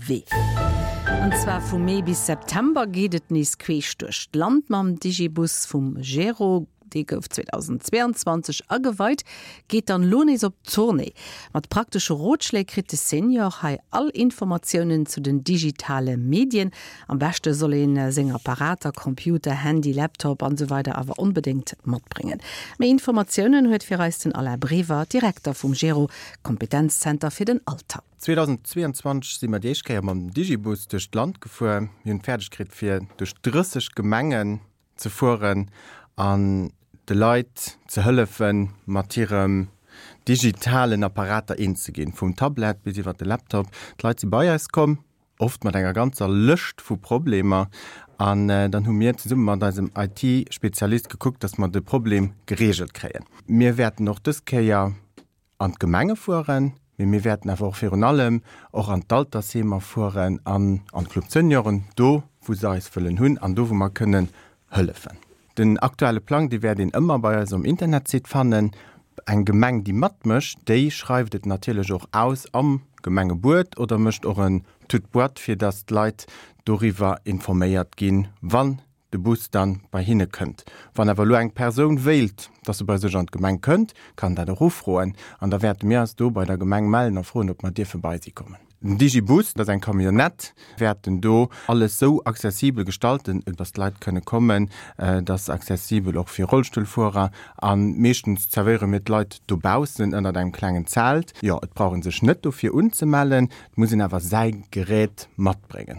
Wee. An zwar vu Mee bis September geet et nees queesch duerch d'Land mam Digibus vum Gero. Dee gouf 2022 ageweit, geet dann elo nees op Tournée. Mat praktesche Rotschléi kritt de Senior hei all Informatiounen zu den digitale Medien. Am beschte soll ee seng Apparater, Computer, Handy, Laptop an esou weider awer onbedéngt matbréngen. Méi Informatiounen huet fir eis den Alain Brever, Direkter vum Gero, Kompetenzzenter fir den Alter. 2022 si mer déi éischt Kéier mam Digibus duerch d'Land gefuer. Mir hunn et fäerdeg kritt fir duerch 30 Gemengen ze fueren an de Leit ze hëllefen, mat hirem digitalen Apparater eens ze ginn, vum Tablet bis iwwer de Laptop. D'Leit si bei eis komm, oft mat enger ganzer Lëscht vu Problemer, an dann hu mir zesumme mat eisem IT-Spezialist gekuckt, dass mer de Problem gereegelt kréien. Mir wäerten och dës Kéier an d'Gemenge fueren, mee mir wäerten awer och virun allem och an d'Altersheemer fueren an an d'Club Senioren, do wou se eis wëllen hunn an do wou mer kënnen hëllefen. Den aktuelle Plang, dee wäert een ëmmer bei eis um Internetsite fannen. Eng Gemeng, déi matmécht, déi schreift et natierlech och aus am Gemengebuet oder mécht och en Toute-boîte, fir datt d'Leit doriwwer informéiert ginn, wann de Bus dann bei hinne kënnt. Wann awer elo eng Persoun wéilt, dass e bei sech an d'Gemeng kënnt, kann dat och ufroen an da wäerte mir eis do bei der Gemeng mellen a froen, ob mer dierfe bei si kommen. Den Digibus, dat ass eng Camionnette, wäerten do alles sou accessibel gestalten, dass d'Leit kënne kommen, et ass accessibel och fir Rollstullfuerer a meeschtens zerwéiere mir d'Leit dobaussen ënnert engem klengen Zelt. Jo, et brauch ee sech net dofir unzemellen, et muss een awer säi Gerät matbréngen.